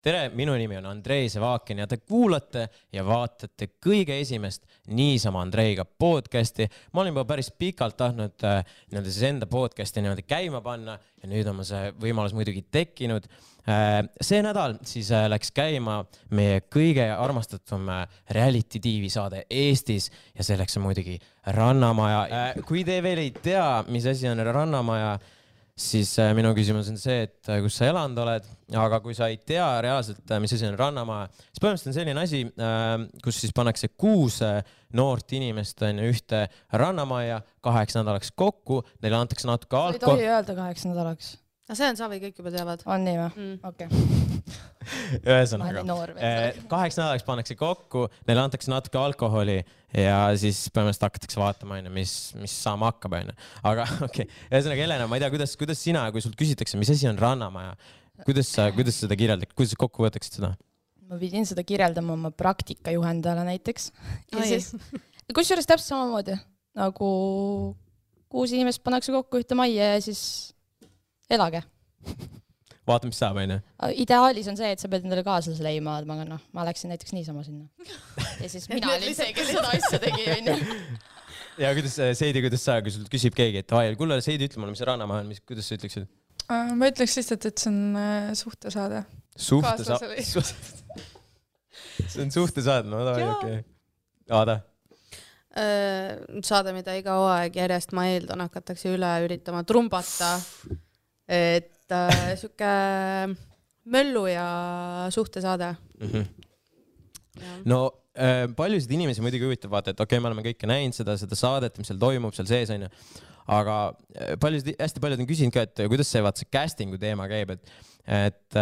Tere, minu nimi on Andrei Sevakin ja te kuulate ja vaatate kõige esimest niisama Andreiga podcasti. Ma olin juba päris pikalt tahtnud siis enda podcasti käima panna ja nüüd on see võimalus muidugi tekkinud. See nädal siis läks käima meie kõige armastatum reality TV saade Eestis ja selleks on muidugi Rannamaja. Kui te veel ei tea, mis asi on Rannamaja, siis minu küsimus on see, et kus sa elanud oled, aga kui sa ei tea reaalselt, mis asi on Rannamaja, siis põhimõtteliselt on selline asi, kus siis pannakse 6 noort inimest ühte Rannamaja 8 nädalaks kokku, neile antakse natuke ei tohi öelda 8 nädalaks. See on savi, kõik juba teavad. On nii või? Okei. Ühesõnaga, 8 nädalaks pannakse kokku, neile antakse natuke alkoholi ja siis põhimõtteliselt hakatakse vaatama, mis saama hakkab. Aga okei. Ühesõnaga, Helena, ma ei tea, kuidas sina, kui sult küsitakse, mis asi on Rannamaja, kuidas seda kirjeldad, kuidas kokku võtaksid seda? Ma pidin seda kirjeldama oma praktikajuhendajale näiteks. Kusjuures täpselt samamoodi, nagu 6 inimest pannakse kokku ühte majja ja siis elage. Vaata, mis saab, on ju? Ideaalis on see, et sa pead endale kaaslase leima, aga ma läksin näiteks niisama sinna. Ja siis mina olin see, kes seda asja tegi, on ju. Ja Seidi, kuidas sa, kui sul küsib keegi, et kuule, Seidi, ütle mulle, mis see Rannamaja on, kuidas sa ütleksid? Ma ütleks lihtsalt, et see on suhtesaade. Suhtesaade? See on suhtesaade, no okei. Aada? Saade, mida iga hooaeg järjest ma eeldan, hakatakse üle üritama trumbata, et siuke möllu ja suhtesaade. No paljusid inimesi muidugi huvitab vaata, et okei, me oleme kõike näinud seda saadet, mis seal toimub, seal sees on ju. Aga hästi paljud on küsinud ka, et kuidas see castingu teema käib, et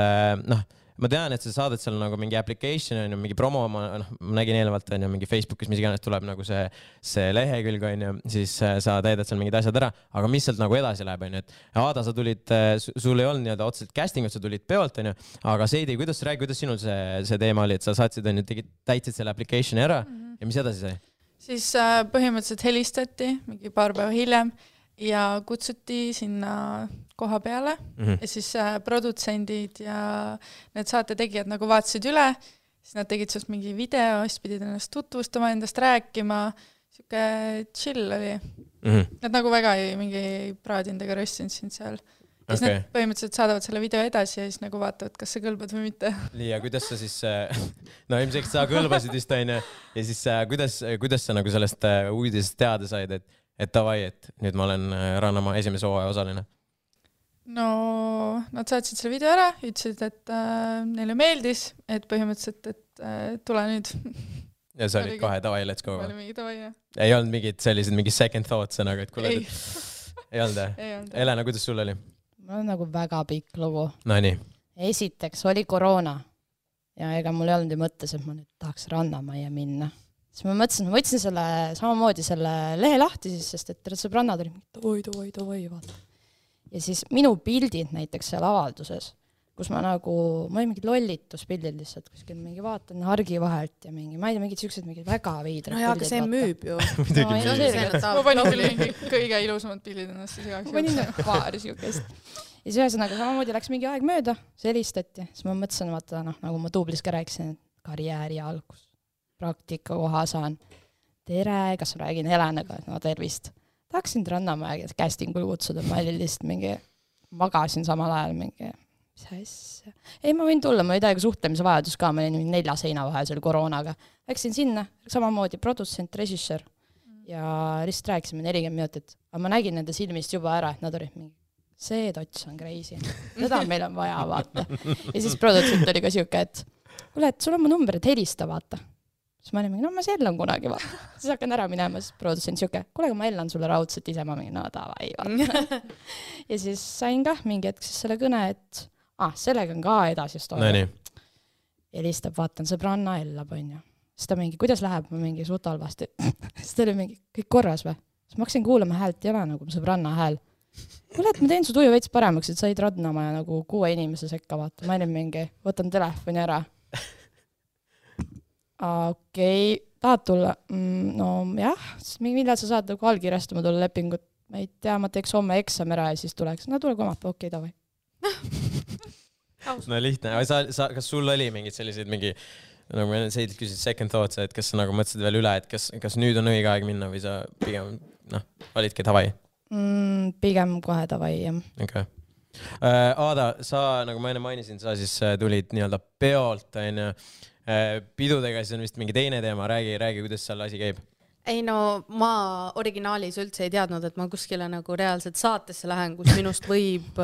ma tean, et see saadet seal nagu mingi application on ju, mingi promo, ma nägin eelevalt on ju, mingi Facebookis, mis iganes tuleb nagu see lehekülg on ju, siis sa teedad seal mingid asjad ära, aga mis sealt nagu edasi läheb on ju, et Aada, sa tulid, sul ei olnud nii-öelda otseselt castingut, sa tulid peolt on ju, aga Seidi, kuidas sinul see teema oli, et sa saatsid on ju, täitsid selle applicationi ära ja mis edasi sai? Siis põhimõtteliselt helistati mingi paar päeva hiljem ja kutsuti sinna koha peale ja siis produtsendid ja need saate tegijad nagu vaatasid üle, siis nad tegid sellest mingi video, siis pidid ennast tutvustama, endast rääkima, siuke chill oli. Nad nagu väga mingi praadinud ega röstinud sind seal. Ja siis nad põhimõtteliselt saadavad selle video edasi ja siis nagu vaatavad, kas sa kõlbad või mitte. Ja kuidas sa siis, no ilmselt sa kõlbasid vist aine ja siis kuidas sa nagu sellest uudisest teada said, et davai, et nüüd ma olen Rannamaa esimese hooaja osaline? No, nad saatsid selle video ära, ütlesid, et neile meeldis, et põhimõtteliselt, et tule nüüd. Ja sa olid kohe davai, let's go. Oli mingi davai, jah. Ei olnud mingi second thoughts, aga et kuule, ei olnud. Helena, kuidas sul oli? Mul on nagu väga pikk lugu. No nii. Esiteks oli koroona ja ega mul ei olnud ju mõttes, et ma nüüd tahaks Rannamaja minna. Siis ma mõtlesin, ma võtsin samamoodi selle lehe lahti siis, sest et sõbrannad oli davai, vaata. Ja siis minu pildid näiteks seal avalduses, kus ma olin mingid lollituspildid lihtsalt, kuskil mingi vaatan hargi vahelt ja mingi, ma ei tea, mingid siuksed mingid väga veidrad. No jaa, aga see müüb ju. Ma panin küll mingi kõige ilusamad pildid ennast siis igaks. Ma panin paar siukest. Ja siis ühesõnaga samamoodi läks mingi aeg mööda, see helistati. Siis ma mõtlesin, vaata, nagu ma Tuublis ka rääkisin, karjääri algus, praktika koha saan. Tere, kas ma räägin Helenaga, no tervist. Tahaksin Rannamaja castingul kutsuda, ma olin lihtsalt mingi, magasin samal ajal mingi, mis asja. Ei, ma võin tulla, ma ei tea, suhtlemise vajadus ka, ma olin 4 seina vahel seal koroonaga. Läksin sinna, samamoodi produtsent, režissöör ja lihtsalt rääkisime 40 minutit. Aga ma nägin nende silmist juba ära, et nad olid mingi, see tots on crazy. Seda meil on vaja, vaata. Ja siis produtsent oli ka siuke, et kuule, et sul on mu number, et helista, vaata. Siis ma olin mingi, no ma sellan kunagi, vaata. Siis hakkan ära minema, siis produtsent siuke, kuule, ma ellan sulle raudselt ise, ma mingi, no davai, vaata. Ja siis sain ka mingi hetk siis selle kõne, et sellega on ka edasi story. Helistab, vaatan, sõbranna ellab, on ju. Siis ta mingi, kuidas läheb, ma mingi suht halvasti. Siis ta oli mingi, kõik korras või? Siis ma hakkasin kuulama häält, ei ole nagu sõbranna hääl. Kuule, et ma teen su tuju veits paremaks, et said Rannamaja nagu 6 inimese sekka, vaata. Ma olin mingi, võtan telefoni ära. Okei, tahad tulla? No jah, millal sa saad nagu allkirjastama tulla lepingut? Ma ei tea, ma teeks homme eksam ära ja siis tuleks. No tule komapäev, okei, davai. no lihtne, aga kas sul oli mingid sellised nagu ma enne küsisid second thoughts, et kas sa nagu mõtlesid veel üle, et kas nüüd on õige aeg minna või sa pigem, olidki davai? Pigem kohe davai, jah. Okay. Aada, sa, nagu ma enne mainisin, sa siis tulid nii-öelda peolt, pidudega, siis on vist mingi teine teema, räägi, kuidas seal asi käib? Ei no, ma originaalis üldse ei teadnud, et ma kuskile nagu reaalselt saatesse lähen, kus minust võib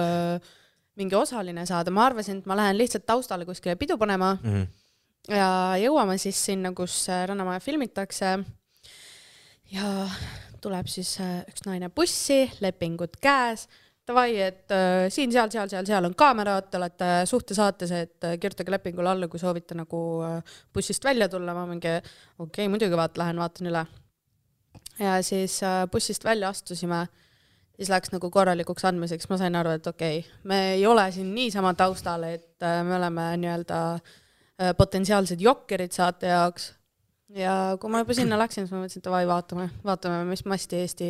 mingi osaline saada. Ma arvasin, et ma lähen lihtsalt taustale kuskile pidu panema ja jõuame siis sinna, kus Rannamaja filmitakse ja tuleb siis üks naine bussi, lepingud käes. Tavai, et siin, seal on kaamerad, te olete suhtesaates, et kirjutage lepingule alla, kui soovite nagu bussist välja tulla. Ma mingi, okei, muidugi lähen vaatan üle. Ja siis bussist välja astusime, siis läks nagu korralikuks andmiseks. Ma sain aru, et okei, me ei ole siin niisama taustal, et me oleme nii-öelda potentsiaalsed jokkerid saate jaoks. Ja kui ma juba sinna läksin, siis ma mõtlesin, et tavai, vaatame, mis masti Eesti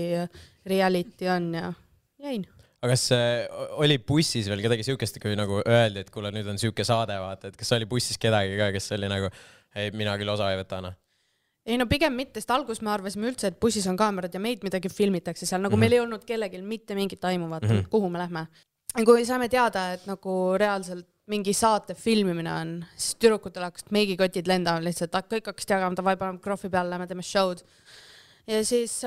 reality on ja jäin. Aga kas oli bussis veel kedagi siukest, kui nagu öeldi, et kuule, nüüd on siuke saade, vaata, et kas oli bussis kedagi ka, kes oli nagu, ei, mina küll osa ei võta, Ei no pigem mitte, sest algus me arvasime üldse, et bussis on kaamerad ja meid midagi filmitakse seal, nagu meil ei olnud kellelgi mitte mingit aimu, vaata, kuhu me lähme. Ja kui saame teada, et nagu reaalselt mingi saate filmimine on, siis tüdrukutel hakkas meigikotid lendama lihtsalt, kõik hakkas jagama, davai, paneme krohvi peale, lähme teeme show'd. Ja siis,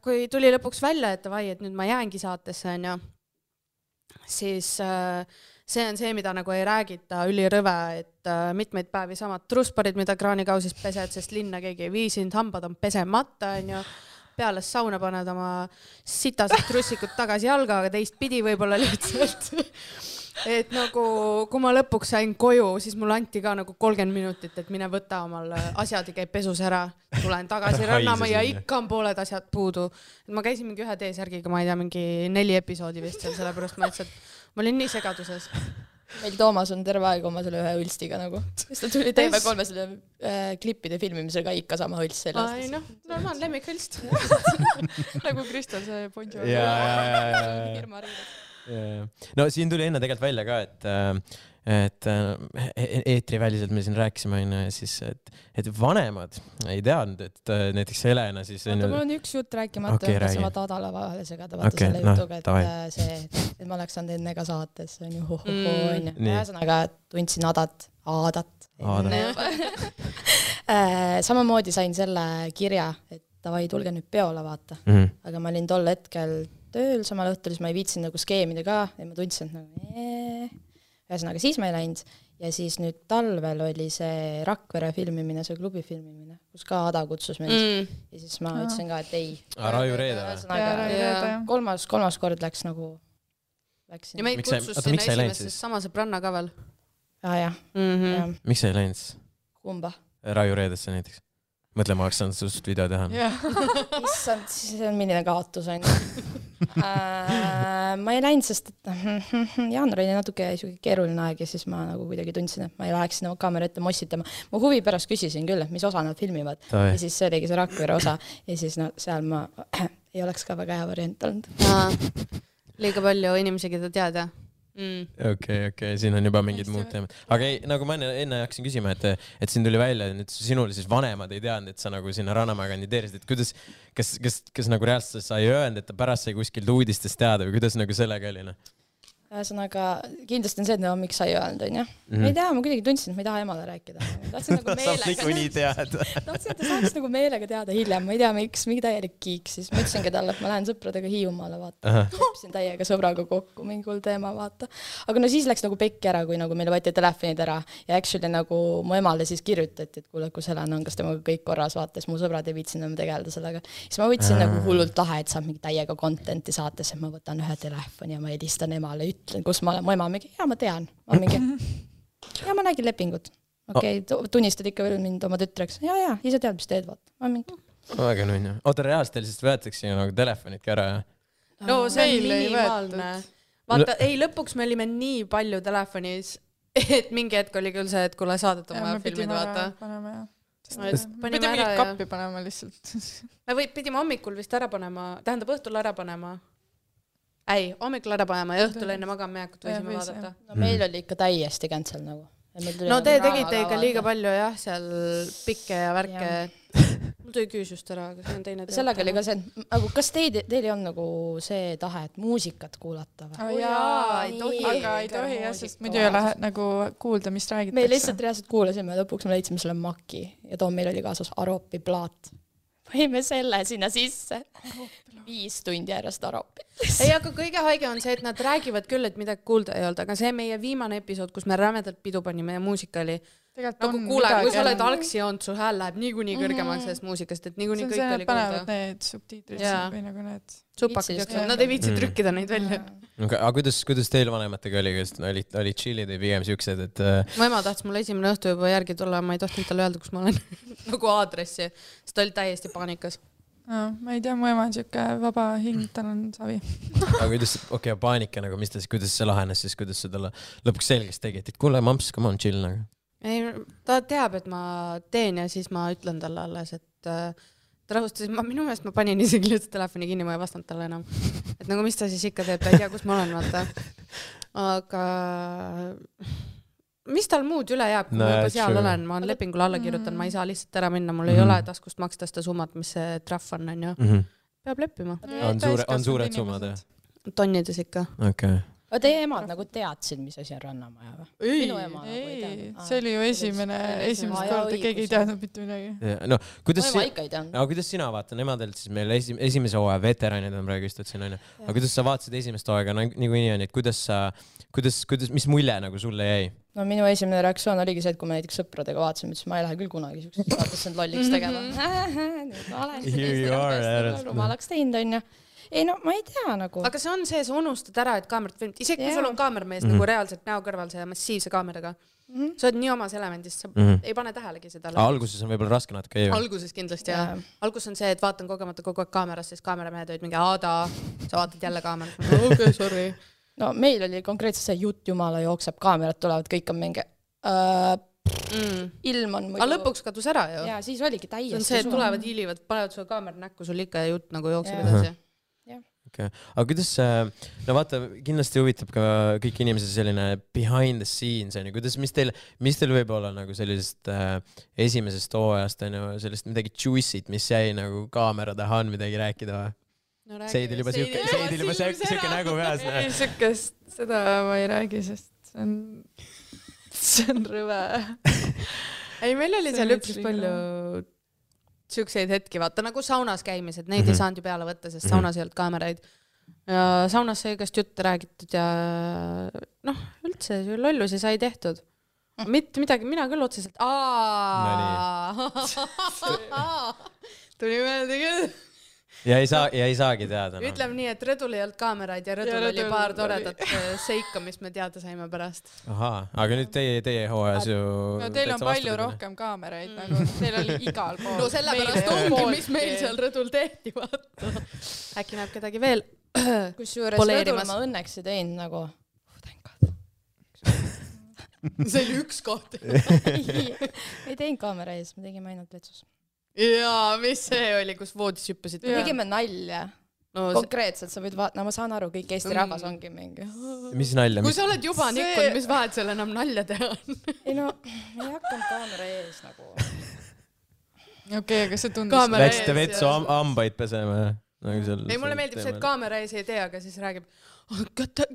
kui tuli lõpuks välja, et davai, et nüüd ma jäängi saatesse, on ju, siis see on see, mida nagu ei räägita ülirõve, et mitmeid päevi samad trusparid, mida kraanikausis pesed, sest linna keegi ei viisinud, hambad on pesemata, on ju, peale sauna paned oma sitased trussikud tagasi jalga, aga teist pidi võib-olla lihtsalt. Et nagu, kui ma lõpuks sain koju, siis mulle anti ka nagu 30 minutit, et mine võta omal asjad ja käib pesus ära. Tulen tagasi Rannama ja ikka on pooled asjad puudu. Et ma käisin mingi ühe T-särgiga, ma ei tea, mingi 4 episoodi vist seal, sellepärast ma ütlesin, et ma olin nii segaduses. Meil Toomas on terve aeg oma selle ühe hõlstiga nagu. Siis ta tuli TV3 selle klippide filmimisega ikka sama hõlst sellest. Ai noh, normaal lemmik hõlst. Nagu Kristel see Bonjour. No siin tuli enne tegelikult välja ka, et eetriväliselt me siin rääkisime, siis, et vanemad ei teadnud, et näiteks Helena siis... Vaata, mul on üks jutt rääkimata, et sa vaata Adala vahele segada, vaata selle jutuga, et ma oleks saanud enne ka saates, on ju, on ju. Ühesõnaga tundsin Aadat. Samamoodi sain selle kirja, et davai, tulge nüüd peole, vaata. Aga ma olin tol hetkel tööl samal õhtul, siis ma ei viitsin nagu skeemida ka ja ma tundsin, et nagu ühesõnaga siis ma ei läinud ja siis nüüd talvel oli see Rakvere filmimine, see klubi filmimine, kus ka Ada kutsus mind ja siis ma ütlesin ka, et ei. Raju Reede või? Kolmas kord läks nagu ja meid kutsus sinna esimesest sama sõbranna ka veel. Jah. Miks sa ei läinud? Kumba? Raju Reedesse näiteks. Mõtle, ma oleks saanud sust video teha. Issand, see on milline kaotus on. Ma ei läinud, sest jaanuar oli natuke keeruline aeg ja siis ma nagu kuidagi tundsin, et ma ei läheks sinna kaamera ette mossitama. Ma huvi pärast küsisin küll, mis osa nad filmivad. Ja siis see oligi see Rakvere osa ja siis seal ma ei oleks ka väga hea variant olnud. Liiga palju inimesi, keda teada. Okei, siin on juba mingid muud teemad. Aga ei, nagu ma enne hakkasin küsima, et siin tuli välja, et sinul siis vanemad ei teadnud, et sa nagu sinna Rannamäe kandideerisid, et kuidas, kas nagu reaalselt sa ei öelnud, et ta pärast sai kuskilt uudistest teada või kuidas nagu sellega oli? Ühesõnaga, kindlasti on see, et miks sa ei öelnud, on ju. Ma ei tea, ma kuidagi tundsin, et ma ei taha emale rääkida. Tahtsin nagu meelega. Tahtsin, et ta saaks nagu meelega teada hiljem. Ma ei tea, miks, mingi täielik kiik. Siis ma ütlesingi talle, et ma lähen sõpradega Hiiumaale, vaata. Lepsin täiega sõbraga kokku, mingi hull teema, vaata. Aga no siis läks nagu pekki ära, kui nagu meile võeti telefonid ära. Ja actually nagu mu emale siis kirjutati, et kuule, kus Helena on, kas temaga kõik korras, vaata. Siis mu sõbrad ei viitsin enam tegeleda sellega. Siis ma võtsin nagu hullult lahe, et saab mingi täiega contenti saates, et ma võtan ühe telefoni ja ma helistan emale, ütlen, kus ma olen, mu ema mingi, ja ma tean, ja ma nägin lepingut. Okei, tunnistad ikka veel mind oma tütreks. Ja, ise tead, mis teed, vaata. Ma mingi. Väga nunja. Oota, reaalselt teil siis võetakse nagu telefonidki ära, jah? No see on minimaalne. Vaata, ei, lõpuks me olime nii palju telefonis, et mingi hetk oli küll see, et kuule saadet oma filmid, vaata. Me pidime mingi kappi panema lihtsalt. Me pidime hommikul vist ära panema, tähendab õhtul ära panema. ei, hommikul ära panema ja õhtul enne magamaminekut võisime vaadata. No meil oli ikka täiesti cancel nagu. No te tegite ikka liiga palju jah, seal pikke ja värke. Mul tuli küüs just ära, aga see on teine. Sellega oli ka see, nagu kas teil ei olnud nagu see tahe, et muusikat kuulata või? Jaa, ei tohi. Aga ei tohi jah, sest muidu ei ole nagu kuulda, mis räägitakse. Me lihtsalt reaalselt kuulasime, lõpuks me leidsime selle Maki ja too meil oli kaasas Aropi plaat. Võime selle sinna sisse. 5 tundi järjest Aropi. Ei, aga kõige haige on see, et nad räägivad küll, et midagi kuulda ei olnud, aga see meie viimane episood, kus me rämedalt pidu panime ja muusika oli nagu kuule, kui sa oled algsi joonud, su hääl läheb niikuinii kõrgemaks sellest muusikast, et niikuinii kõik oli kuulda. Panevad need subtiitrid või nagu need supakad jooksevad, nad ei viitsi trükkida neid välja. Aga kuidas teil vanematega oli, kas olid chillid või pigem siuksed, et... Mu ema tahtis mulle esimene õhtu juba järgi tulla, ma ei tohtinud talle öelda, kus ma olen nagu aadressi, sest ta oli täiesti paanikas. Ma ei tea, mu ema on siuke vaba hing, tal on savi. Aga kuidas, paanika nagu, kuidas see lahenes siis, kuidas sa talle lõpuks selgeks tegid, et kuule, mamps, come on, chill nagu. Ei, ta teab, et ma teen ja siis ma ütlen talle alles, et ta rahustas, minu meelest ma panin isegi lihtsalt telefoni kinni, ma ei vastanud talle enam. Et nagu mis ta siis ikka teeb, ta ei tea, kus ma olen, vaata. Aga mis tal muud üle jääb, kui ma juba seal olen, ma olen lepingule alla kirjutan, ma ei saa lihtsalt ära minna, mul ei ole taskust maksta seda summat, mis see trahv on ju. Peab leppima. On suured summad, jah? Tonnides ikka. Okay. Aga teie emad nagu teadsid, mis asi on Rannamaja või? Minu ema nagu ei teadnud. See oli ju esimest korda, keegi ei teadnud mitte midagi. No, kuidas sina vaata, nemadelt siis meil esimese hooaja veteranid on praegu istutsin, on ju. Aga kuidas sa vaatasid esimest hooaega, nagu nii on, et kuidas, mis mulje nagu sulle jäi? No minu esimene reaktsioon oligi see, et kui me näiteks sõpradega vaatasime, siis ma ei lähe küll kunagi siuksest vaatast end lolliks tegema. Rumalaks teinud, on ju. Ei no, ma ei tea nagu. Aga see on see, sa unustad ära, et kaamerat filmid. Isegi kui sul on kaamermees nagu reaalselt näo kõrval see massiivse kaameraga. Sa oled nii omas elemendist, sa ei pane tähelegi seda. Alguses on võib-olla raske natuke. Alguses kindlasti, jah. Algus on see, et vaatan kogemata kogu aeg kaamerast, siis kaameramehed olid mingi Aada, sa vaatad jälle kaamerat. Okei, sorry. No meil oli konkreetselt see jutt, jumala jookseb, kaamerad tulevad, kõik on mingi ilm on muidu. Aga lõpuks kadus ära ju. Ja siis oligi täiesti. See on see, et tulevad hiilivad, panevad sulle kaamera näkku, sul ikka jutt nagu jookseb edasi. Okay. Aga kuidas, no vaata, kindlasti huvitab ka kõik inimesed selline behind the scenes, mis teil võib olla nagu sellisest esimesest hooajast, sellest midagi juicy't, mis jäi nagu kaamera taha on midagi rääkida või? No, Seidil juba siuke nägu peas. Ei, siukest, seda ma ei räägi, sest see on rõve. Ei, meil oli seal üpris palju siukseid hetki, vaata nagu saunas käimised, neid ei saanud ju peale võtta, sest saunas ei olnud kaameraid. Ja saunas sai igast jutte räägitud ja noh, üldse lollusi sai tehtud. Mitte midagi, mina küll otseselt. Tuli meelde küll. Ja ei saagi teada. No. Ütleme nii, et Rõdul ei olnud kaameraid ja Rõdul oli paar toredat seika, mis me teada saime pärast. Ahaa, aga nüüd teie hooajas ju... No teil on palju rohkem kaameraid, nagu teil oli igal pool. No sellepärast ongi, mis meil seal Rõdul tehti, vaata. Äkki näeb kedagi veel kusjuures Rõdul ma õnneks ei teinud nagu... See oli üks koht. Ei teinud kaamera ees, me tegime ainult vetsus. Jaa, mis see oli, kus voodis hüppasid? Me tegime nalja. Konkreetselt sa võid vaata, no ma saan aru, kõik Eesti rahvas ongi mingi. Mis nalja? Kui sa oled juba nikkunud, mis vahet seal enam nalja teha on? Ei no, me ei hakanud kaamera ees nagu. Okei, aga see tundus... Läksite vetsu ambaid pesema? Ei, mulle meeldib see, et kaamera ees ei tee, aga siis räägib,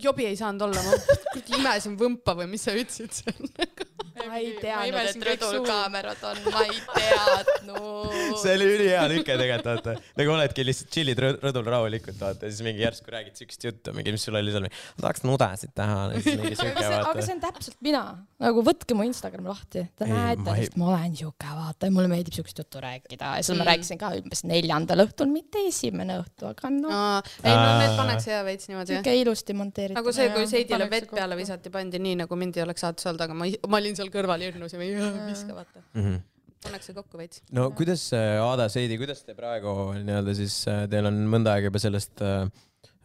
jobi ei saanud olla, ma imesin võmpa või mis sa ütlesid seal? Ma ei teadnud, et Rõdul kaamerad on, ma ei teadnud. See oli ülihea lüke tegelikult, vaata. Nagu oledki lihtsalt chillid Rõdul rahulikult, vaata. Siis mingi järsku räägid sükst juttu, mingi, mis sul oli seal. Ma tahaks nudesid teha. Aga see on täpselt mina. Nagu võtke mu Instagram lahti. Te näete, sest ma olen siuke, vaata. Mulle meeldib sükst juttu rääkida. Ja siis ma rääkisin ka umbes 4. õhtul, mitte 1. õhtu, aga no. Ei, no need pannakse hea veits niimoodi. Siuke ilusti monteeritud. Nagu see, kui Seidile vett peale visati, pandi nii, nagu mind ei oleks saates olnud, aga ma olin seal kõrval hirnus ja viska, vaata. Pannakse kokku veits. No kuidas, Aada, Seidi, kuidas te praegu nii-öelda siis, teil on mõnda aega juba sellest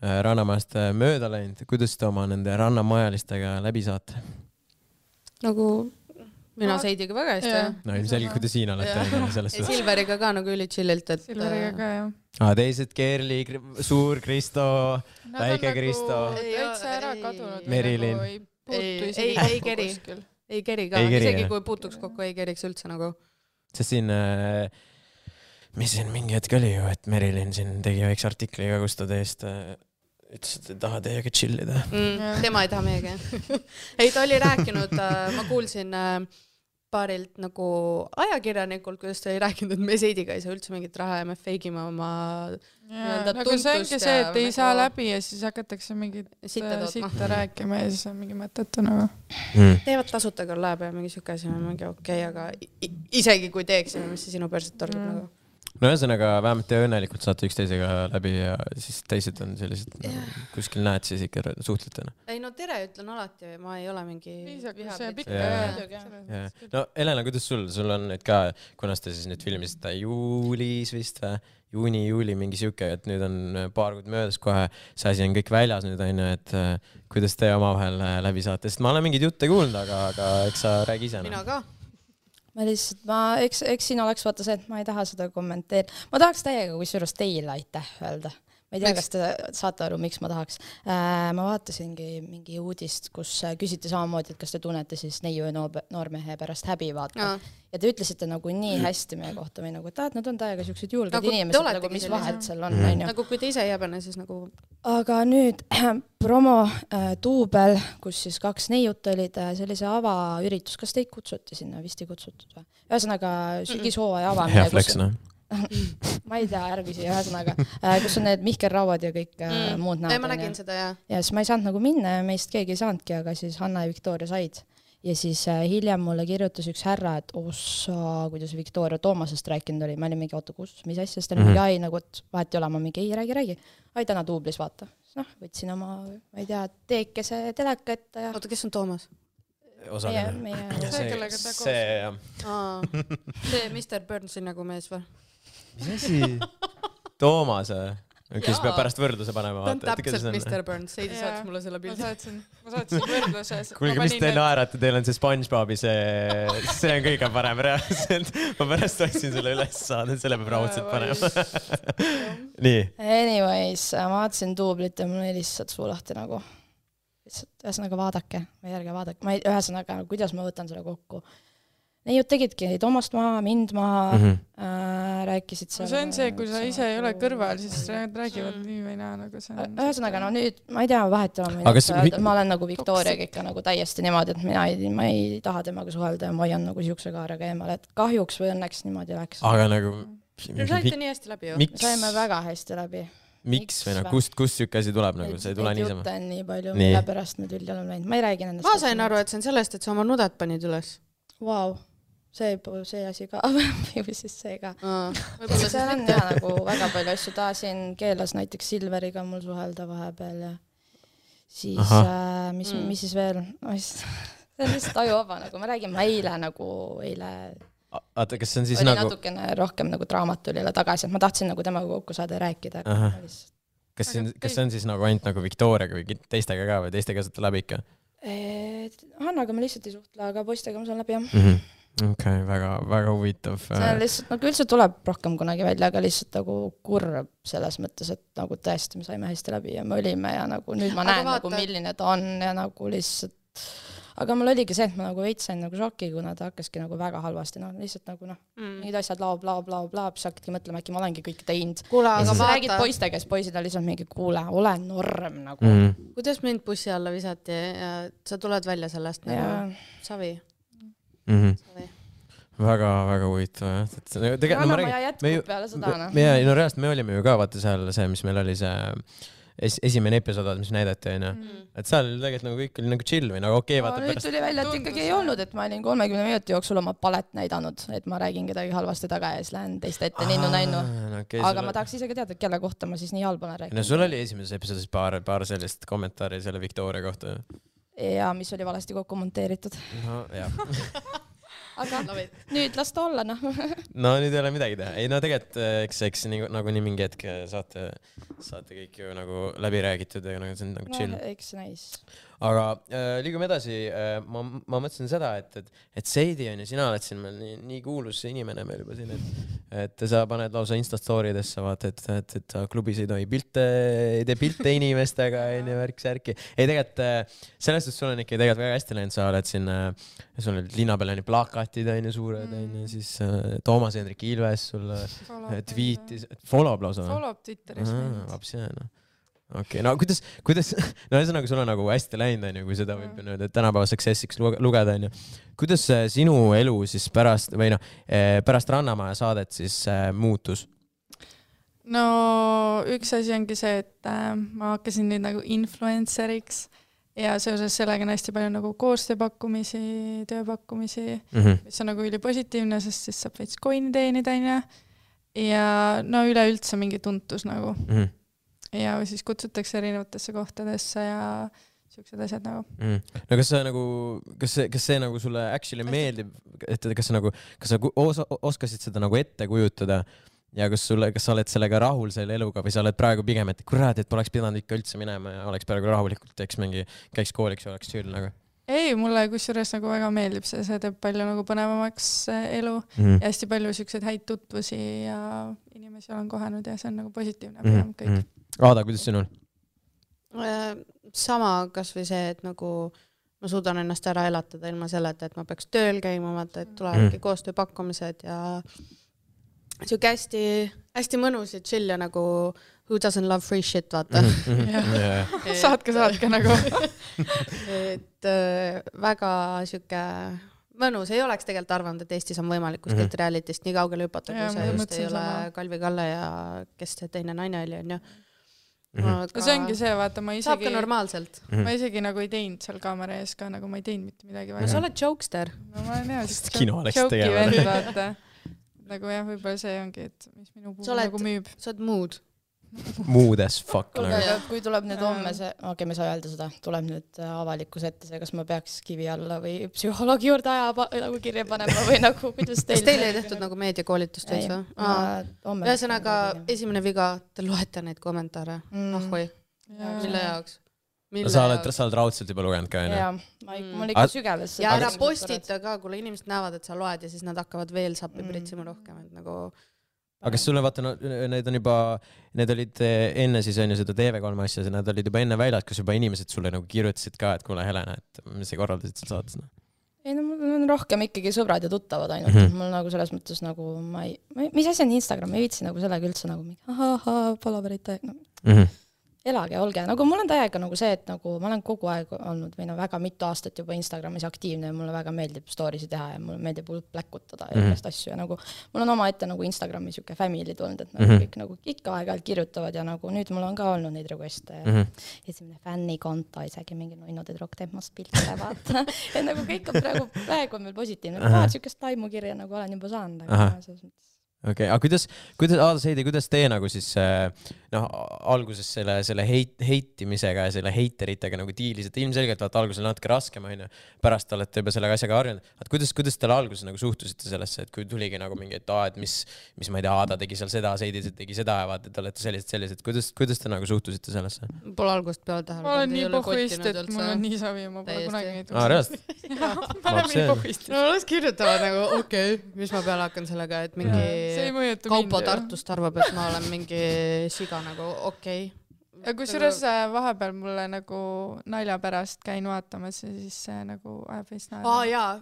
Rannamajast mööda läinud, kuidas te oma nende rannamajalistega läbi saate? Nagu mina Seidiga väga hästi, jah. No ilmselge, kui te siin olete selles ja Silveriga ka nagu üli chillilt, et Silveriga ka, jah. Teised Kerli, suur Kristo, väike Kristo. Täitsa ära kadunud. Merilin. Ei keri. Ei keri ka, isegi kui puutuks kokku, ei keriks üldse nagu. Sest siin, mis siin mingi hetk oli ju, et Merilin siin tegi väikse artikli ka, kus ta teist ütles, et ei taha teiega chillida. Tema ei taha meiega. Ei, ta oli rääkinud, ma kuulsin paarilt nagu ajakirjanikult, kuidas ta oli rääkinud, et me Seidiga ei saa üldse mingit raha ja me feigime oma nagu see ongi see, et ei saa läbi ja siis hakatakse mingit sitta rääkima ja siis on mingi mõtetu nagu. Teevad tasuta küll läheb ja mingi siuke asi on mingi okei, aga isegi kui teeksime, mis see sinu perset torgib nagu. No ühesõnaga, vähemalt te õnnelikult saate üksteisega läbi ja siis teised on sellised, kuskil näed siis ikka suhtletena. Ei no tere ütlen alati, ma ei ole mingi No Helena, kuidas sul on nüüd ka, kunas te siis nüüd filmisite juulis vist või? Juuni, mingi siuke, et nüüd on paar kuud möödas kohe, see asi on kõik väljas nüüd on ju, et kuidas te omavahel läbi saate, sest ma olen mingeid jutte kuulnud, aga eks sa räägi ise. Mina ka. Ma lihtsalt, eks siin oleks vaata see, et ma ei taha seda kommenteerida. Ma tahaks täiega, kui suurus teile aitäh öelda. Ma ei tea, kas te saate aru, miks ma tahaks. Ma vaatasingi mingi uudist, kus küsiti samamoodi, et kas te tunnete siis neiu ja noormehe pärast häbi vaata. Ja te ütlesite nagu nii hästi meie kohta või nagu, et nad on täiega siuksed julged nagu inimesed, nagu mis vahet seal on. Nagu kui te ise ei jäbene, siis nagu... Aga nüüd promo Tuubel, kus siis 2 neiut olid sellise avaüritus, kas teid kutsuti sinna, vist ei kutsutud või? Ühesõnaga sügishooaja avamine. Hea flex, noh. Ma ei tea, ärgüsi, ühesõnaga, kus on need Mihkel Rauad ja kõik muud näod. Ma nägin seda, jah. Ja siis ma ei saanud nagu minna ja meist keegi ei saanudki, aga siis Hanna ja Viktoria said. Ja siis hiljem mulle kirjutas üks härra, et ossa, kuidas Viktoria Toomasest rääkinud oli. Ma olin mingi, oota, kus, mis asja, sest mingi ai, nagu, et vahet ei ole, ma mingi, ei räägi. Ai, täna Tuublis, vaata. Võtsin oma, ma ei tea, teekese teleka ette. Oota, kes on Toomas? See Mr. Burnsi nagu mees või? Mis asi? Toomas või? Kes peab pärast võrdluse panema. Ta on täpselt Mr. Burns, Seidi saatis mulle selle pildi. Ma saatsin võrdluse. Kuulge, mis te naerate, teil on see SpongeBobi, see on kõige parem reaalselt. Ma pärast otsin selle üles saada, selle peab raudselt panema. Nii. Anyways, ma vaatasin Tuublit ja mul oli lihtsalt suu lahti nagu. Ühesõnaga vaadake, või ärge vaadake. Ühesõnaga, kuidas ma võtan selle kokku. Neiud tegidki Toomast maha, mind maha, rääkisid seal. See on see, kui sa ise ei ole kõrval, siis räägivad nii või naa. Ühesõnaga, no nüüd, ma ei tea, vahet ma olen nagu Viktoriaga ikka nagu täiesti niimoodi, et ma ei taha temaga suhelda ja ma hoian nagu siukse kaarega eemale, et kahjuks või õnneks niimoodi läks. Aga nagu... Saite nii hästi läbi ju? Saime väga hästi läbi. Miks või no, kust siuke asi tuleb nagu, see ei tule niisama? Jutte on nii palju, mille pärast me tülli oleme läinud. Ma ei räägi nendest. Ma sain aru, et see on sellest, et sa oma nudet panid üles. Vau. See asi ka, või siis see ka. See on jah nagu väga palju asju. Ta siin keelas näiteks Silveriga mul suhelda vahepeal ja siis, mis siis veel? See on lihtsalt ajuvaba, nagu ma räägin, ma eile Aata, kas see on siis oli nagu... natukene rohkem nagu draamatulile tagasi, et ma tahtsin nagu temaga kokku saada ja rääkida. Kas see on siis nagu ainult nagu Viktoriaga või teistega ka või teistega saate läbi ikka? Hannaga ma lihtsalt ei suhtle, aga poistega ma saan läbi jah. Okei, väga huvitav. See on lihtsalt, nagu üldse tuleb rohkem kunagi välja, aga lihtsalt nagu kurb selles mõttes, et nagu tõesti me saime hästi läbi ja me olime ja nagu nüüd ma näen nagu milline ta on ja nagu lihtsalt aga mul oligi see, et ma nagu veits sain nagu šoki, kuna ta hakkaski nagu väga halvasti, lihtsalt nagu mingid asjad bla, siis hakkadki mõtlema, äkki ma olengi kõik teinud. Kuule, aga vaata. Räägid poistega, siis poisid on lihtsalt mingi, kuule, ole norm nagu. Kuidas mind bussi alla visati ja sa tuled välja sellest nagu savi? Väga huvitav. Rannamaja jätkub peale seda. No reaalselt me olime ju ka vaata seal see, mis meil oli see esimene episood, mis näidati, et seal tegelikult nagu kõik oli nagu chill või nagu okei, vaata pärast. Nüüd tuli välja, et ikkagi ei olnud, et ma olin 30 minuti jooksul oma palet näidanud, et ma räägin kedagi halvasti taga ja siis lähen teiste ette ninnu-nännu. Aga ma tahaks isegi teada, kelle kohta ma siis nii halb olen rääkinud. No sul oli esimeses episoodis paar sellist kommentaari selle Viktoria kohta. Ja mis oli valesti kokku monteeritud. No, jah. aga nüüd las ta olla, noh. No nüüd ei ole midagi teha. Ei no tegelikult, eks nagu nii mingi hetk saate kõik ju nagu läbi räägitud ja nagu see on nagu chill. Eks näis. Aga liigume edasi. Ma mõtlesin seda, et Seidi on ja sina oled siin meil nii kuulus inimene meil juba siin, et sa paned lausa Instastoridesse, vaata, et klubis ei tohi ei tee pilte inimestega, värk-särki. Ei tegelikult, sellest, et sul on ikka tegelikult väga hästi läinud, sa oled siin, sul olid linna peal plakatid, suured, siis Toomas Hendrik Ilves sul tweetis, follow lausa. Follow Twitteris. Okei, no kuidas, no ühesõnaga sul on nagu hästi läinud, kui seda võib nüüd tänapäeva successiks lugeda, kuidas sinu elu siis pärast Rannamaja saadet siis muutus? No üks asi ongi see, et ma hakkasin nüüd nagu influenceriks ja seoses sellega on hästi palju nagu koostööpakkumisi, tööpakkumisi, mis on nagu ülipositiivne, sest siis saab veits coin'i teenida, ja no üleüldse mingi tuntus nagu. Ja siis kutsutakse erinevatesse kohtadesse ja siuksed asjad nagu. No kas see nagu sulle actually meeldib, et kas sa oskasid seda nagu ette kujutada ja kas sa oled sellega rahul selle eluga või sa oled praegu pigem, et kurat, et poleks pidanud ikka üldse minema ja oleks praegu rahulikult, käiks kooliks ja oleks chill nagu? Ei, mulle kusjuures nagu väga meeldib see teeb palju nagu põnevamaks elu ja hästi palju siukseid häid tutvusi ja inimesi olen kohanud ja see on nagu positiivne kõik. Aada, kuidas sinul? Sama kas või see, et nagu ma suudan ennast ära elatada ilma selleta, et ma peaks tööl käima, vaata, et tulevadki koostööpakkumised ja siuke hästi mõnus ja chill ja nagu who doesn't love free shit, vaata. Saatke nagu. Et väga siuke mõnus, ei oleks tegelikult arvanud, et Eestis on võimalik kuskilt realitist nii kaugele hüpata, kui see just ei ole Kalvi Kalle ja kes see teine naine oli, on ju. Aga see ongi see, vaata, ma saab ka normaalselt. Ma isegi nagu ei teinud seal kaamera ees ka, nagu ma ei teinud mitte midagi. No sa oled jokester. No ma olen kino läks tegema. Vaata. Nagu jah, võib-olla see ongi, et mis minu puhul nagu müüb. Sa oled mood. Mood as fuck. Kui tuleb nüüd homme see, me ei saa öelda seda, tuleb nüüd avalikus ette see, kas ma peaks kivi alla või psühholoogi juurde nagu kirja panema või nagu, kuidas teil... Kas teil ei tehtud nagu meediakoolitust veits või? Ühesõnaga, esimene viga, te loete neid kommentaare. Ahvoi. Mille jaoks? Sa oled raudselt juba lugenud ka, jah? Mul ikka sügeves. Ja ära postita ka, kuule inimesed näevad, et sa loed ja siis nad hakkavad veel sappi pritsima rohkem, et nagu... Aga kas sulle vaata, need olid enne siis on ju seda TV3 asja, need olid juba enne väljad, kas juba inimesed sulle nagu kirjutasid ka, et kuule Helena, et mis sa korraldasid seal saates? Ei, no mul on rohkem ikkagi sõbrad ja tuttavad ainult, mul nagu selles mõttes nagu mis asi on Instagram, ei viitsi nagu sellega üldse nagu palaverite, elage, olge, nagu mul on täiega nagu see, et nagu ma olen kogu aeg olnud või väga mitu aastat juba Instagramis aktiivne ja mulle väga meeldib story'si teha ja mulle meeldib pläkutada ja igast asju ja nagu mul on oma ette nagu Instagrami siuke family tulnud, et nagu kõik nagu ikka aeg-ajalt kirjutavad ja nagu nüüd mul on ka olnud neid requeste ja esimene fännikonto, isegi mingi nunnu tüdruk teeb must pilte, vaata. Et nagu kõik on praegu on veel positiivne, siukest taimukirja nagu olen juba saanud, aga selles mõttes. Okei, aga Aada Seidi, kuidas tee nagu siis alguses selle heitimisega ja selle heiteritega nagu diilised, ilmselgelt vaata alguses natuke raskem, pärast olete juba sellega asjaga harjunud, et kuidas teile alguses nagu suhtusite sellesse, et kui tuligi nagu mingi, et mis ma ei tea, Aada tegi seal seda, Seidi tegi seda ja vaata, et olete sellised, kuidas te nagu suhtusite sellesse? Pole algust peale tähele. Ma olen nii pohhuist, et mul on nii savi ja ma pole kunagi neid reaalselt? Ma olen nii pohhuist. No las kirjutavad nagu, okei, mis ma peale hakkan sellega, et mingi Kaupo Tartust arvab, et ma olen mingi siga nagu, okei. Ja kusjuures vahepeal mulle nagu nalja pärast käin vaatamas ja siis see nagu ajab veits naera. Jaa,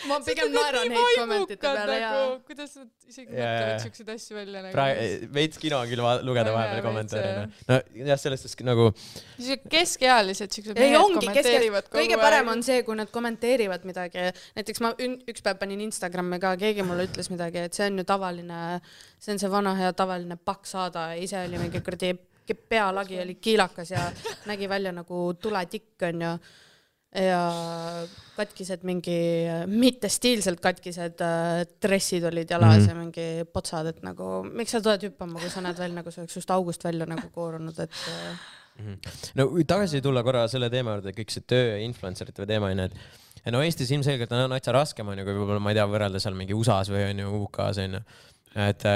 ma pigem naeran neid kommentite peale. Kuidas nad isegi mõtlevad siukseid asju välja? Veits kino on küll lugeda vahepeal kommentaare. No jah, sellest nagu... Keskealised siuksed mehed kommenteerivad kogu aeg. Kõige parem on see, kui nad kommenteerivad midagi. Näiteks ma üks päev panin Instagrami ka, keegi mulle ütles midagi, et see on ju tavaline, see on see vana hea tavaline paks Aada ja ise oli mingi kurdi pealagi oli kiilakas ja nägi välja nagu tuletikk on ju ja katkised mingi mittestiilselt katkised dressid olid jalas ja mingi potsad, et nagu miks sa tuled hüppama, kui sa näed välja nagu see oleks just august välja nagu koorunud, et No tagasi tulla korra selle teema juurde, kõik see töö ja influencerite teema on, ja no Eestis ilmselgelt on natsa raskem on ju, kui võib-olla ma ei tea, võrrelda seal mingi USAs või on ju UK-s on ju. Et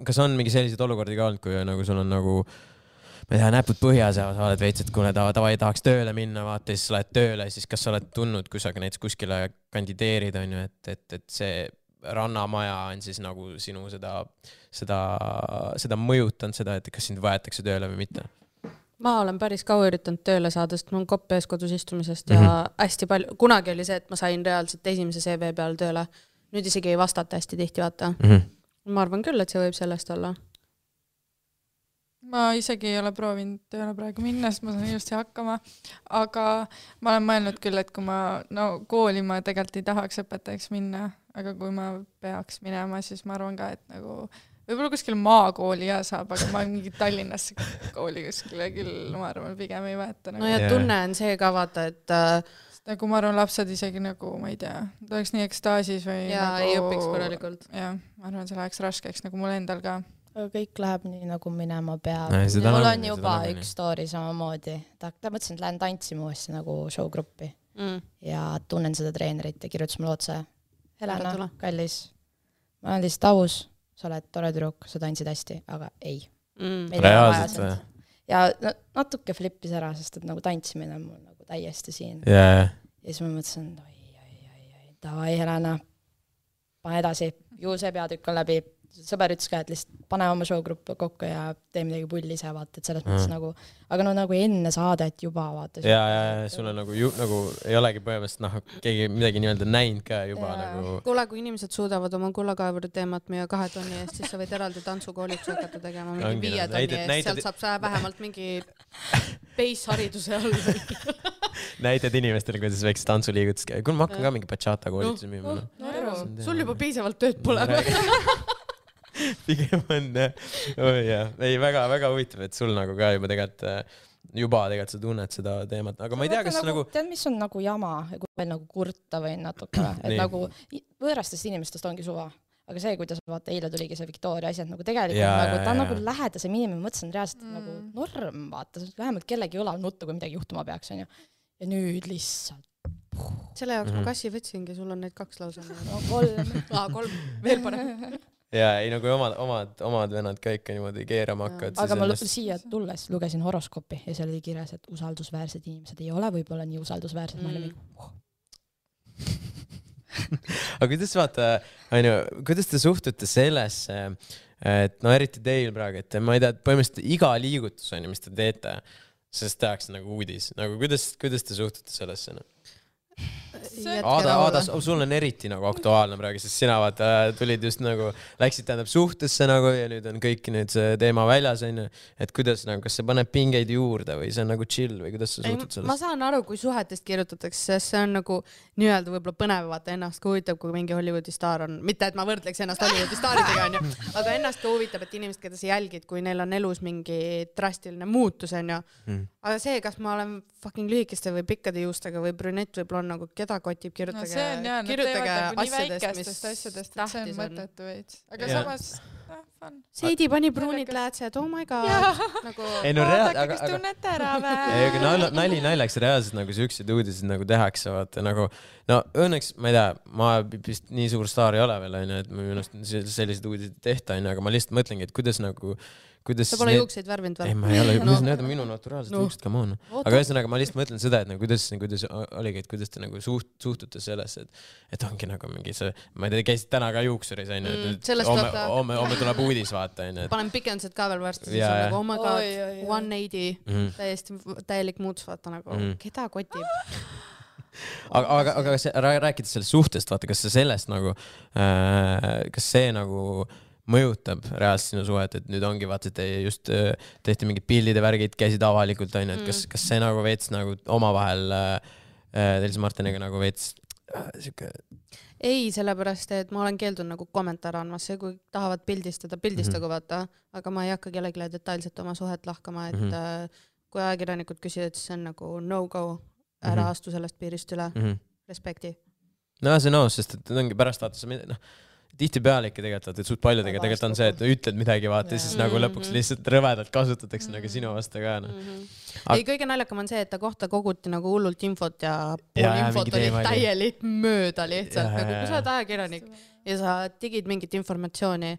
kas on mingi selliseid olukordi ka olnud, kui nagu sul on nagu ma ei tea, näpud põhjas ja sa oled veits, et kui tavai tahaks tööle minna, vaata, siis sa lähed tööle, siis kas sa oled tundnud, kui sa näiteks kuskile kandideerid, on ju, et see rannamaja on siis nagu sinu seda mõjutanud seda, et kas sind võetakse tööle või mitte? Ma olen päris kaua üritanud tööle saada, sest mul on kopp ees kodus istumisest ja hästi palju, kunagi oli see, et ma sain reaalselt esimese CV peale tööle. Nüüd isegi ei vastata hästi tihti, vaata. Ma arvan küll, et see võib sellest olla. Ma isegi ei ole proovinud tööle praegu minna, sest ma saan ilusti hakkama, aga ma olen mõelnud küll, et kui kooli ma tegelikult ei tahaks õpetajaks minna, aga kui ma peaks minema, siis ma arvan ka, et nagu võib-olla kuskil maakooli ja saab, aga ma mingi Tallinnasse kooli kuskile küll, ma arvan, pigem ei võeta. No ja tunne on see ka vaata, et nagu ma arvan, lapsed isegi nagu, ma ei tea, ta oleks nii ekstaasis või ja nagu, ei õpiks korralikult. Ja, ma arvan, see läheks raskeks nagu mul endal ka. Aga kõik läheb nii nagu minema peab. Mul on juba üks story samamoodi. Ta mõtlesin, et lähen tantsima uuesti nagu showgruppi ja tunnen seda treenerit ja kirjutas mulle otse. Helena, kallis, ma olen lihtsalt aus, sa oled tore tüdruk, sa tantsid hästi, aga ei. Reaalselt või? Ja natuke flippis ära, sest et nagu tantsimine on mul nagu täiesti siin. Ja siis ma mõtlesin, davai Helena, pane edasi, ju see peatükk on läbi. Sõber ütles ka, et lihtsalt pane oma showgruppi kokku ja tee midagi pulli ise, vaata, et selles mõttes nagu, aga nagu enne saadet juba vaata. Ja sul on nagu ei olegi põhimõtteliselt keegi midagi nii-öelda näinud ka juba nagu. Kuule, kui inimesed suudavad oma kullakaevuri teemat müüa 2 tonni eest, siis sa võid eraldi tantsukoolituse hakata tegema mingi 5 tonni eest, sealt saab sa vähemalt mingi base-hariduse all. Näitad inimestele, kuidas väikse tantsuliigutus käib. Kuule, ma hakkan ka mingi bachata koolituse müüma. Sul juba piisavalt tööd pole. Pigem on ei, väga huvitav, et sul nagu ka juba tegelikult sa tunned seda teemat, aga ma ei tea, kas nagu tead, mis on nagu jama, kui veel nagu kurta või natuke, et nagu võõrastest inimestest ongi suva, aga see, kuidas vaata, eile tuligi see Victoria asjad nagu tegelikult nagu, ta on nagu lähedasem inimene, mõtlesin reaalselt nagu norm, vaata, vähemalt kellegi õlal nuttu, kui midagi juhtuma peaks, on ju, ja nüüd lihtsalt selle jaoks ma kassi võtsingi, sul on neid 2 lausa. 3. 3, veel parem. Ja ei nagu omad vennad ka ikka niimoodi keerama hakkavad. Aga ma siia tulles lugesin horoskoopi ja seal oli kirjas, et usaldusväärsed inimesed ei ole võib-olla nii usaldusväärsed. Aga kuidas vaata, kuidas te suhtute sellesse, et eriti teil praegu, et ma ei tea, põhimõtteliselt iga liigutus on, mis te teete, sest tehakse nagu uudis. Nagu kuidas te suhtute sellesse? Aada, sul on eriti nagu aktuaalne praegu, sest sina tulid just nagu, läksid tähendab suhtesse nagu ja nüüd on kõik nüüd see teema väljas, et kuidas nagu, kas see paneb pingeid juurde või see on nagu chill või kuidas sa suhtud sellest? Ma saan aru, kui suhetest kirjutatakse, sest see on nagu nii-öelda võib-olla põnev vaata ennast ka huvitab, kui mingi Hollywoodi staar on, mitte et ma võrdleks ennast Hollywoodi staaridega on ju, aga ennast ka huvitab, et inimesed, keda sa jälgid, kui neil on elus mingi drastiline muutus on ju, aga see, kas ma olen fucking lühikeste või pikkade juustega või brünett võib-olla on nagu keda kotib, kirjutage asjadest, et see on mõttetu veits. Aga samas, fun. Seidi pani pruunid läätsed, oh my god. Vaadake, kes tunnete ära vä. Nali naljaks reaalselt nagu siuksed uudised nagu tehakse, vaata nagu, no õnneks, ma ei tea, ma vist nii suur staar ei ole veel, et minu arust sellised uudised tehta, aga ma lihtsalt mõtlengi, et kuidas nagu sa pole juukseid värvinud või? Ei, ma ei ole, need on minu naturaalsed juuksed, come on. Aga ühesõnaga, ma lihtsalt mõtlen seda, et kuidas oligi, et kuidas te nagu suhtute sellesse, et ongi nagu mingi see, ma ei tea, käisid täna ka juuksuris, et homme tuleb uudis, vaata. Panen pikendused ka veel varsti, siis on nagu, oh my god, 180, täielik muutus, vaata nagu, keda kotib? Aga rääkides sellest suhtest, vaata, kas see sellest nagu, kas see nagu mõjutab reaalselt sinu suhet, et nüüd ongi vaata, et te just tehti mingid pildide värgid, käisid avalikult, on ju, et kas see nagu veits nagu omavahel teil Martiniga nagu veits siuke... Ei, sellepärast, et ma olen keeldunud nagu kommentaar andmas, see kui tahavad pildistagu vaata, aga ma ei hakka kellegile detailselt oma suhet lahkama, et kui ajakirjanikud küsivad, siis see on nagu no-go, ära astu sellest piirist üle, respekti. No see on aus, sest et ongi pärast vaata, tihtipeale ikka tegelikult, et suht paljudega tegelikult on see, et ütled midagi, vaata, siis nagu lõpuks lihtsalt rõvedalt kasutatakse nagu sinu vastu ka. Ei, kõige naljakam on see, et ta kohta koguti nagu hullult infot ja pool infot oli täielik mööda lihtsalt, nagu kui sa oled ajakirjanik ja sa digid mingit informatsiooni,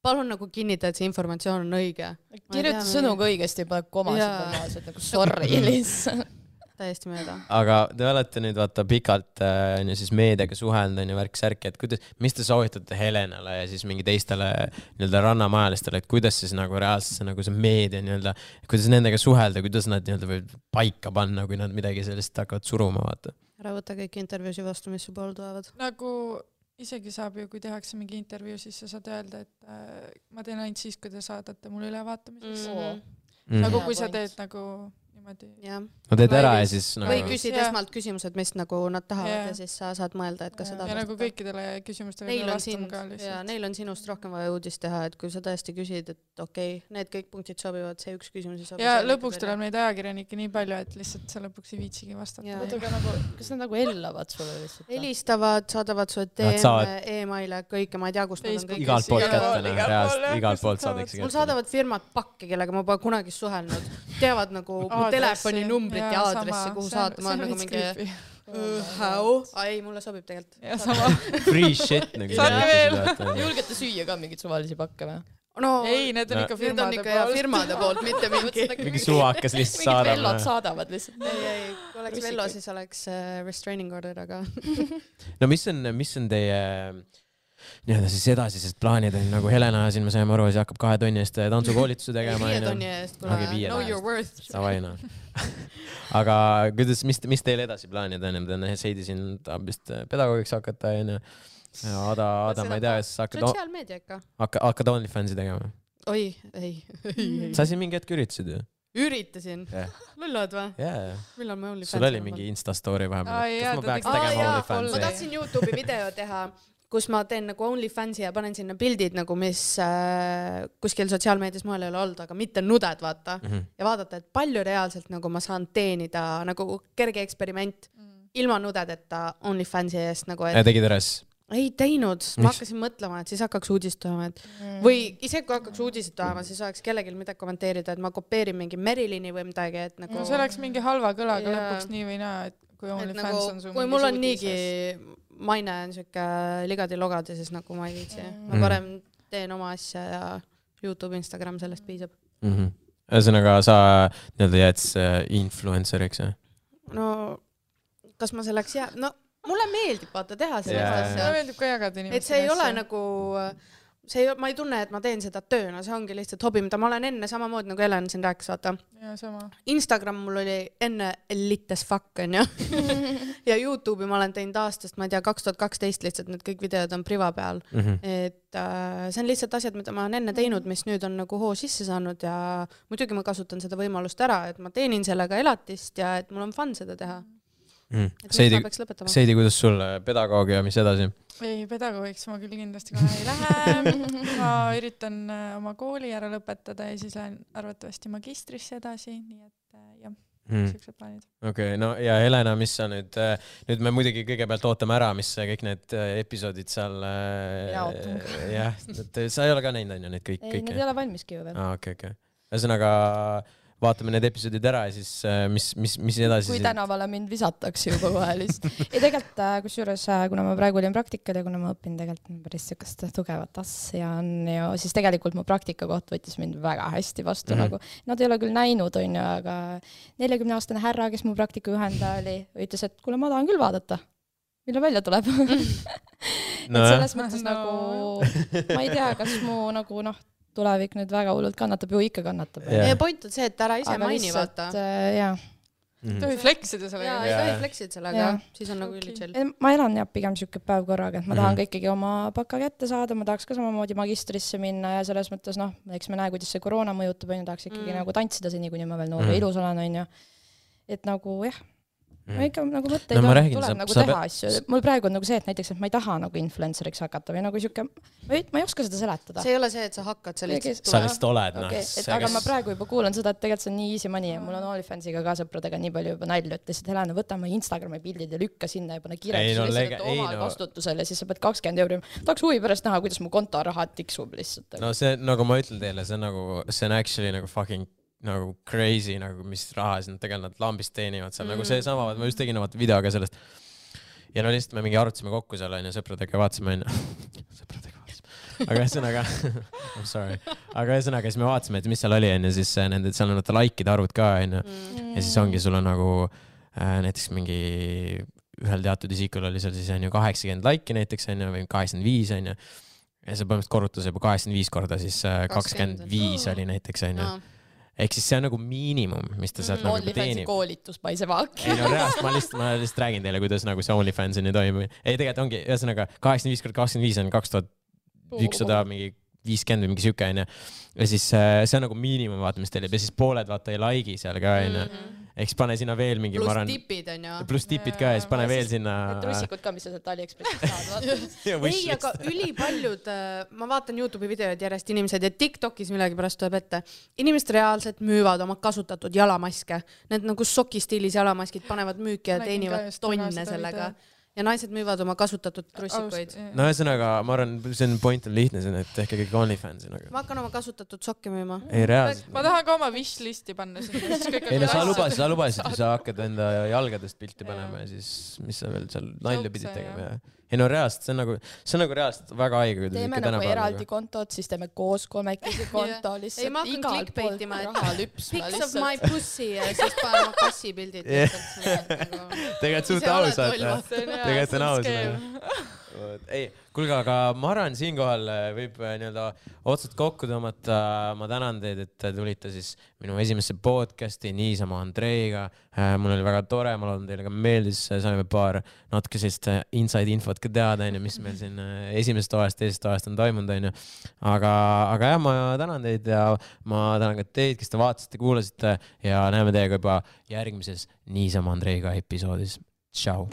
palun nagu kinnita, et see informatsioon on õige. Kirjuta sõnuga õigesti, pane komasid normaalselt, nagu sorry lihtsalt. Täiesti mööda. Aga te olete nüüd vaata pikalt siis meediaga suhelnud ja värk-särki, et mis te soovitate Helenale ja siis mingi teistele nii-öelda rannamajalistele, et kuidas siis nagu reaalselt see, nagu see meedia nii-öelda, kuidas nendega suhelda, kuidas nad nii-öelda võib paika panna, kui nad midagi sellist hakkavad suruma, vaata. Ära võtta kõik intervjuusi vastu, mis su pool tulevad. Nagu isegi saab ju, kui tehakse mingi intervjuu, siis sa saad öelda, et ma teen ainult siis, kui te saadate mulle ülevaatamiseks. Nagu kui sa teed nagu no teed ära ja siis nagu... või küsid esmalt küsimused, mis nagu nad tahavad ja siis sa saad mõelda, et kas seda ja nagu kõikidele küsimustele vastama ka lihtsalt. Ja neil on sinust rohkem vaja uudist teha, et kui sa tõesti küsid, et okei, need kõik punktid sobivad, see üks küsimus ei sobi. Ja lõpuks tuleb neid ajakirjanikke nii palju, et lihtsalt sa lõpuks ei viitsigi vastata. Kas nad nagu ellavad sulle lihtsalt? Helistavad, saadavad sulle DM-e, e-maile, kõike, ma ei tea, kust nad on kõik. Igalt poolt kätte, igalt poolt saadakse kätte. Mul saadavad firmad pakke, kellega ma pole kunagi suhelnud. Teavad nagu telefoninumbrit ja aadressi, kuhu saata, ma olen nagu mingi ei, mulle sobib tegelikult. Free shit nagu. Julgete süüa ka mingit suvalisi pakke või? No, ei, need on ikka firmade poolt, mitte mingi suvakas lihtsalt saadab. Mingid vellod saadavad lihtsalt. Ei, kui oleks vello, siis oleks restraining order, aga... No mis on teie... nii-öelda siis edasised plaanid on nagu Helena siin me saime aru, siis hakkab 2 tunni eest tantsukoolituse tegema. 5 tunni eest, kuna know your worth. Savaina. Aga kuidas, mis teil edasi plaanid on? Seidi siin tahab vist pedagoogiks hakata ja Ada, ma ei tea, siis sotsiaalmeedia ikka. Hakkad OnlyFansi tegema? Oi, ei. Sa siin mingi hetk üritasid ju? Üritasin? Lullad või? Millal ma OnlyFansi? Sul oli mingi Insta-story vahepeal. Kas ma peaks tegema OnlyFansi? Ma tahtsin YouTube'i video teha, kus ma teen nagu OnlyFansi ja panen sinna pildid nagu, mis kuskil sotsiaalmeedias moel ei ole olnud, aga mitte nuded, vaata. Ja vaadata, et palju reaalselt nagu ma saan teenida, nagu kerge eksperiment, ilma nudedeta OnlyFansi eest. Nagu, ja tegid üles? Ei teinud, ma hakkasin mõtlema, et siis hakkaks uudistama, et või isegi kui hakkaks uudistama, siis oleks kellegil midagi kommenteerida, et ma kopeerin mingi Merilini või midagi, et nagu... see oleks mingi halva kõlaga lõpuks nii või naa, et kui OnlyFans on su kui mul on niigi maine on siuke ligadi-logadi, siis nagu ma ei viitsi. Ma parem teen oma asja ja YouTube, Instagram, sellest piisab. Ühesõnaga sa nii-öelda jääd influenceriks, jah? No, kas ma selleks jää... No, mulle meeldib vaata teha sellist asja. Mulle meeldib ka jagada inimestele. Et see ei ole nagu, ma ei tunne, et ma teen seda tööna, see ongi lihtsalt hobi, mida ma olen enne samamoodi nagu Helen siin rääkis, vaata. Ja, sama. Instagram mul oli enne elite as fuck, on ju. Ja YouTube'i ma olen teinud aastast, ma ei tea, 2012 lihtsalt need kõik videod on priva peal. Et see on lihtsalt asjad, mida ma olen enne teinud, mis nüüd on nagu hoo sisse saanud ja muidugi ma kasutan seda võimalust ära, et ma teenin sellega elatist ja et mul on fun seda teha. Seidi, kuidas sul pedagoogia, mis edasi? Ei, pedagoogiks ma küll kindlasti kohe ei lähe. Ma üritan oma kooli ära lõpetada ja siis lähen arvatavasti magistrisse edasi, nii et jah, sellised plaanid. Okei, no ja Helena, mis sa nüüd me muidugi kõigepealt ootame ära, mis kõik need episoodid seal jah, sa ei ole ka näinud, on ju, need kõik? Ei, need ei ole valmiski ju veel. Okei. Ühesõnaga vaatame need episoodid ära ja siis mis edasi? Kui tänavale mind visatakse juba kohe lihtsalt. Ja tegelikult, kusjuures, kuna ma praegu olin praktikal ja kuna ma õpin tegelikult päris sükast tugevat asja on ju, siis tegelikult mu praktikakoht võttis mind väga hästi vastu. Nagu, nad ei ole küll näinud, on ju, aga 40-aastane härra, kes mu praktika juhendaja oli, ütles, et kuule, ma tahan küll vaadata, millal välja tuleb. Et selles mõttes nagu, ma ei tea, kas mu nagu tulevik nüüd väga hullult kannatab, ju ikka kannatab. Ja point on see, et ära ise maini vaata. Jaa. Ei tohi fleksida sellega. Jaa, ei tohi fleksida sellega. Siis on nagu ülichill. Ma elan jah pigem siuke päev korraga, et ma tahan ikkagi oma baka kätte saada, ma tahaks ka samamoodi magistrisse minna ja selles mõttes, eks me näe, kuidas see koroona mõjutab, tahaks ikkagi nagu tantsida seni, kuni ma veel noor ja ilus olen, on ju. Et nagu jah. ma ikka nagu mõtteid No ma on, räägin, tuleb sa- nagu sa teha asju. Mul praegu on nagu see, et näiteks, et ma ei taha nagu influenceriks hakata või nagu siuke, ma ei oska seda seletada. see ei ole see, et sa hakkad, sa lihtsalt sa lihtsalt oled, Okay, aga ma praegu juba kuulan seda, et tegelikult see on nii easy money ja mul on OnlyFansiga ka sõpradega nii palju juba nalju, et lihtsalt Helena, võta oma Instagrami pildid ja lükka sinna ja pane kirjaks omal vastutusel ja siis sa pead 20 euri. Tahaks huvi pärast näha, kuidas mu kontoraha tiksub lihtsalt. No see, nagu ma ütlen teile, see on actually nagu fucking nagu crazy, nagu mis raha siin tegelikult nad lambist teenivad seal, nagu see sama, ma just tegin video ka sellest. Ja no lihtsalt me mingi arutasime kokku seal, on ju, sõpradega vaatasime, on ju. Sõpradega vaatasime. Aga ühesõnaga, I'm sorry. Aga ühesõnaga, siis me vaatasime, et mis seal oli, on ju, siis nende, seal on likeide arvud ka, on ju. Ja siis ongi, sul on nagu näiteks mingi ühel teatud isikul oli seal siis on ju 80 like'i näiteks, on ju, või 85, on ju. Ja see põhimõtteliselt korrutas juba 85 korda, siis 25 oli näiteks, on ju. Ehk siis see on nagu miinimum, mis ta sealt nagu teenib. Koolitus paise vaak. Ei no reaalselt, ma lihtsalt räägin teile, kuidas nagu see OnlyFansini toimub. Ei, tegelikult ongi, ühesõnaga 85 korda 25 on 2100 mingi 50 või mingi süke, on ju. Ja siis see on nagu miinimum, vaata, mis teil jääb. Ja siis pooled, vaata, ei like'i seal ka, on ju. Eks pane sinna veel mingi... Plus tipid, on ju. Plus tipid ka ja siis pane veel sinna... Trussikud ka, mis sa sealt AliExpressist saad. Ei, aga ülipaljud, ma vaatan YouTube'i videod järjest inimesed ja TikTokis millegi pärast tuleb ette. Inimesed reaalselt müüvad oma kasutatud jalamaske. Need nagu sokistiilis jalamaskid panevad müüki ja teenivad tonne sellega. Ja naised müüvad oma kasutatud trussikuid. No ühesõnaga, ma arvan, see on point on lihtne, et tehke kõik OnlyFansi. Ma hakkan oma kasutatud sokki müüma. Ei, reaalselt. Ma tahan ka oma wishlisti panna sinna. Ei, no sa lubasid, kui sa hakkad enda jalgadest pilti panema ja siis mis sa veel seal nalja pidid tegema. Ei no reaalselt, see on nagu reaalselt väga haige. Teeme nagu eraldi kontot, siis teeme koos 3 konto lihtsalt. Ei, ma hakkan clickbaitima, et pics of my pussy ja siis panen oma kassi pildid. Tegelikult suht ausalt. Tegelikult on aus. Ei, kuulge, aga ma arvan, siinkohal võib nii-öelda otsad kokku tõmmata. Ma tänan teid, et tulite siis minu esimesse podcasti niisama Andreiga. Mul oli väga tore, ma loodan teile ka meeldis. Saime paar natuke sellist inside infot ka teada, mis meil siin esimesest toast, teisest toast on toimunud. Aga jah, ma tänan teid ja ma tänan ka teid, kes te vaatasite, kuulasite ja näeme teiega juba järgmises niisama Andreiga episoodis. Ciao!